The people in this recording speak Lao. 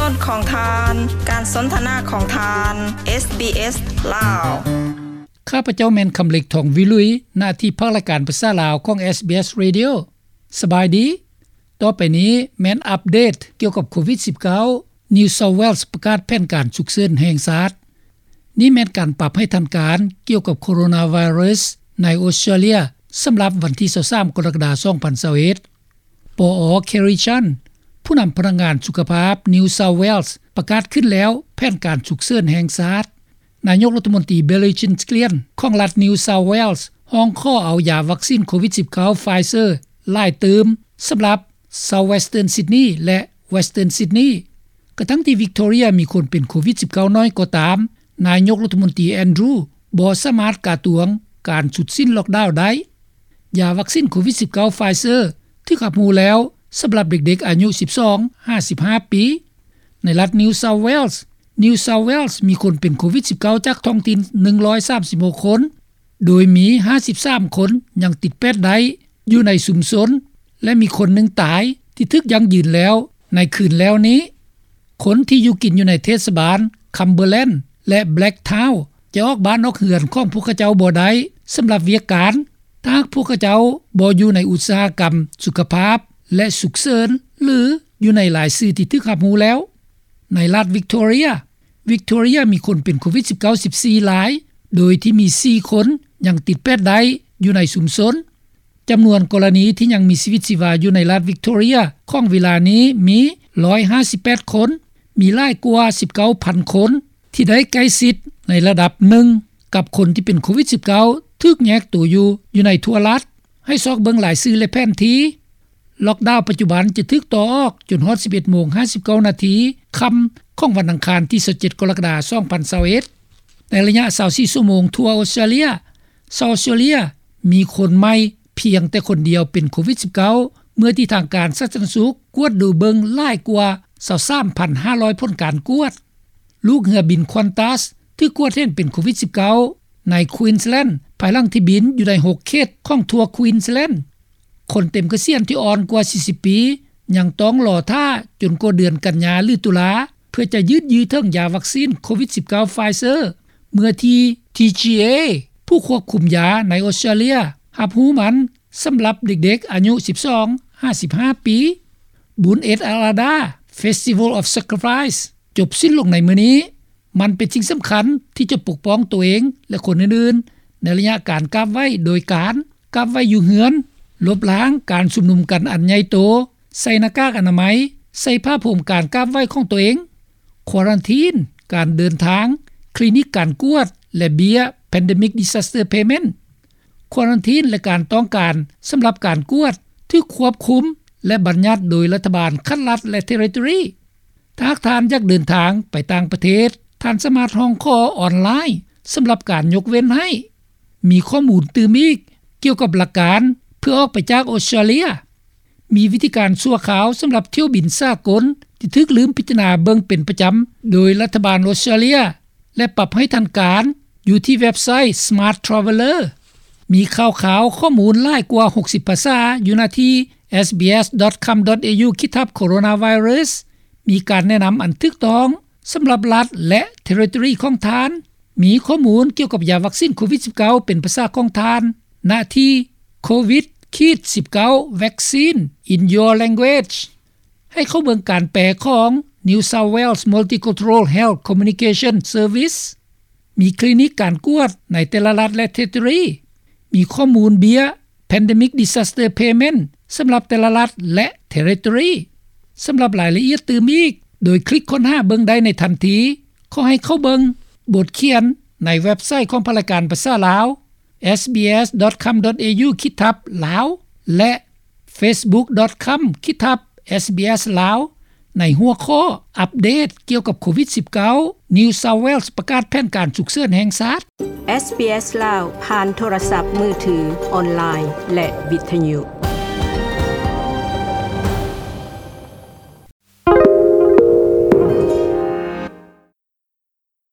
ຂອງທ່ານ ການສົນທະນາຂອງທ່ານ ເອສບີເອສ ລາວ. ຂ້າພະເຈົ້າແມ່ນຄຳເລັກ ທອງວິລຸຍ ໜ້າທີ່ພາກລາຍການພາສາລາວຂອງ ເອສບີເອສ Radio. ສະບາຍດີ. ຕໍ່ໄປນີ້ແມ່ນອັບເດດກ່ຽວກັບໂຄວິດສິບເກົ້າ New South Wales ປະກາດແຜນການສຸກເສີນແຫ່ງຊາດ. ນີ້ແມ່ນການປັບໃຫ້ທັນການກ່ຽວກັບໂຄໂຣນາໄວຣັສໃນອົດສະຕຣາເລຍ ສຳລັບວັນທີຊາວສາມ ກໍລະກະດາ ສອງພັນຊາວເອັດ. ປອ Kerry Chant ຜູ້ນຳພະນັກງານສຸຂະພາບ New South Wales ປະກາດຂຶ້ນແລ້ວແຜນການສຸກເສີນແຫ່ງຊາດ. ນາຍົກລັດຖະມົນຕີ Billy Chillian ຂອງລັດ New South Wales ຮ້ອງຂໍເອົາຢາວັກຊີນໂຄວິດສິບເກົ້າ Pfizer ຫຼາຍຕື່ມ ສຳລັບ South Western Sydney ແລະ Western Sydney. ກະທັງທີ່ Victoria ມີຄົນເປັນໂຄວິດສິບເກົ້າ ໜ້ອຍກໍຕາມ, ນາຍົກລັດຖະມົນຕີ Andrew ບໍ່ສາມາດກະຕວງການຊຸດສິ້ນລັອກດາວໄດ້. ຢາວັກຊີນໂຄວິດສິບເກົ້າ Pfizer ຖືກຮັບຮູ້ແລ້ວ ສຳລັບເດັກໆອາຍຸ ສິບສອງ ຫາ ສິບຫ້າປີ. ໃນລັດ New South Wales, New South Wales ມີຄົນເປັນໂຄວິດສິບເກົ້າ ຈາກທ້ອງຖິ່ນ ໜຶ່ງຮ້ອຍສາມສິບຫົກຄົນ, ໂດຍມີ ຫ້າສິບສາມຄົນຍັງຕິດແປດໄດ້ຢູ່ໃນຊຸມຊົນ ແລະ ມີຄົນໜຶ່ງຕາຍທີ່ຖືກຢັ້ງຢືນແລ້ວໃນຄືນແລ້ວນີ້. ຄົນທີ່ຢູ່ກິນຢູ່ໃນເທດສະບານ Cumberland ແລະ Blacktown ຈະອອກບ້ານອອກເຮືອນຂອງພວກເຂົາເຈົ້າບໍ່ໄດ້ ສຳລັບວຽກການ ຖ້າຫາກພວກເຂົາເຈົ້າບໍ່ຢູ່ໃນອຸດສາຫະກຳສຸຂະພາບ ແລະ ສຸກເສີນ ຫຼື ຢູ່ໃນລາຍຊື່ທີ່ຖືກຮັບຮູ້ແລ້ວ. ໃນລັດ Victoria, Victoria ມີຄົນເປັນໂຄວິດສິບເກົ້າ ສິບສີ່ລາຍ, ໂດຍທີ່ມີສີ່ຄົນຍັງຕິດແປດໄດ້ຢູ່ໃນຊຸມຊົນ. ຈຳນວນກໍລະນີທີ່ຍັງມີຊີວິດຊີວາຢູ່ໃນລັດ Victoria ຂອງເວລານີ້ມີ ຮ້ອຍຫ້າສິບແປດຄົນ, ມີຫຼາຍກວ່າ ສິບເກົ້າພັນຄົນ ທີ່ໄດ້ໃກ້ຊິດໃນລະດັບໜຶ່ງກັບຄົນທີ່ເປັນໂຄວິດສິບເກົ້າ ຖືກແຍກໂຕຢູ່ ຢູ່ໃນທົ່ວລັດ. ໃຫ້ຊອກເບິ່ງລາຍຊື່ ແລະ ແຜນທີ່. ລັອກດາວປັດຈຸບັນຈະຖືກຕໍ່ອອກຈົນຮອດ ສິບເອັດໂມງ ຫ້າສິບເກົ້ານາທີ ຄ່ຳຂອງວັນອັງຄານທີຊາວເຈັດ ກໍລະກະດາ ສອງພັນຊາວເອັດ. ໃນໄລຍະຊາວສີ່ຊົ່ວໂມງທົ່ວອົດສະຕຣາເລຍ, ຊາວອົດສະຕຣາເລຍມີຄົນໃໝ່ພຽງແຕ່ຄົນດຽວເປັນໂຄວິດສິບເກົ້າ ເມື່ອທີ່ທາງການສາທາລະນະສຸກກວດດູເບິ່ງຫຼາຍກວ່າ ຊາວສາມພັນຫ້າຮ້ອຍຜົນການກວດ. ລູກເຮືອບິນ Qantas ຖືກກວດເຫັນເປັນໂຄວິດສິບເກົ້າ ໃນ Queensland ພາຍຫຼັງທີ່ບິນຢູ່ໃນຫົກເຂດຂອງທົ່ວ Queensland. ຄົນເຕັມກະສຽນທີ່ອ່ອນກວ່າສີ່ສິບປີ ຍັງຕ້ອງລໍຖ້າຈົນກວ່າເດືອນກັນຍາ ຫຼື ຕຸລາ ເພື່ອຈະຢືດຢື້ອເຖິງຢາວັກຊີນໂຄວິດສິບເກົ້າ Pfizer ເມື່ອທີ່ ທີຈີເອ ຜູ້ຄວບຄຸມຢາໃນອົດສະຕຣາເລຍ ຮັບຮູ້ມັນສຳລັບເດັກໆອາຍຸ ສິບສອງ ຫາ ສິບຫ້າປີ. ບຸນເອດອາລາດາ Festival of Sacrifice ຈົບສິ້ນລົງໃນມື້ນີ້. ມັນເປັນສິ່ງສຳຄັນທີ່ຈະປົກປ້ອງຕົວເອງ ແລະ ຄົນອື່ນໆ ໃນໄລຍະການກາບໄຫວ້ໂດຍການກາບໄຫວ້ຢູ່ເຮືອນ, ລົບລ້າງການຊຸມນຸມກັນອັນໃຫຍ່ໂຕ, ໃສ່ໜ້າກາກອະນາໄມ, ໃສ່ຜ້າໂພມການກາບໄຫວ້ຂອງຕົວເອງ, ຄວາຣັນທີນການເດີນທາງ, ຄລີນິກການກວດ ແລະ ເບ້ຍ Pandemic Disaster Payment. ຄວາຣັນທີນ ແລະ ການຕ້ອງການສຳລັບການກວດຖືກຄວບຄຸມ ແລະ ບັນຍັດໂດຍລັດຖະບານຂັ້ນລັດ ແລະ ເທຣິໂຕຣີ. ຖ້າຫາກທ່ານຢາກເດີນທາງໄປຕ່າງປະເທດ, ທ່ານສາມາດຮ້ອງຂໍອອນລາຍສຳລັບການຍົກເວັ້ນໃຫ້. ມີຂໍ້ມູນຕື່ມອີກກ່ຽວກັບຫຼັກການເພື່ອອອກໄປຈາກອົດສະຕຣາເລຍ. ມີວິທີການຊົ່ວຄາວສຳລັບຖ້ຽວບິນສາກົນທີ່ຖືກລືມພິຈາລະນາເບິ່ງເປັນປະຈຳໂດຍລັດຖະບານອົດສະຕຣາເລຍ ແລະ ປັບໃຫ້ທັນການຢູ່ທີ່ເວັບໄຊ Smart Traveller. ມີຂ່າວຄາວຂໍ້ມູນຫຼາຍກວ່າຫົກສິບພາສາຢູ່ໜ້າທີ່ SBS.com.au ຂີດທັບ Coronavirus. ມີການແນະນຳອັນຖືກຕ້ອງສຳລັບລັດ ແລະ ເທຣິໂຕຣີຂອງທ່ານ. ມີຂໍ້ມູນກ່ຽວກັບຢາວັກຊີນໂຄວິດສິບເກົ້າເປັນພາສາຂອງທ່ານ ນະທີ່ Covid ສິບເກົ້າ Vaccine in Your Language. ໃຫ້ເຂົ້າເບິ່ງການແປຂອງ New South Wales Multicultural Health Communication Service. ມີຄລີນິກການກວດໃນແຕ່ລະລັດ ແລະ ເທຣິໂຕຣີ. ມີຂໍ້ມູນເບ້ຍ Pandemic Disaster Payment ສຳລັບແຕ່ລະລັດ ແລະ ເທຣິໂຕຣີ. ສຳລັບລາຍລະອຽດຕື່ມອີກ, ໂດຍຄລິກຄົ້ນຫາເບິ່ງໄດ້ໃນທັນທີ. ຂໍໃຫ້ເຂົ້າເບິ່ງບົດຂຽນໃນເວັບໄຊຂອງພາກລາຍການພາສາລາວ SBS.com.au ຂີດທັບ Lao ແລະ Facebook.com ຂີດທັບ SBS Lao ໃນຫົວຂໍ້ອັບເດດກ່ຽວກັບໂຄວິດສິບເກົ້າ New South Wales ປະກາດແຜນການສຸກເສີນແຫ່ງຊາດ. ເອສບີເອສ ລາວ ຜ່ານໂທລະສັບມືຖື, ອອນລາຍ ແລະ ວິທະຍຸ.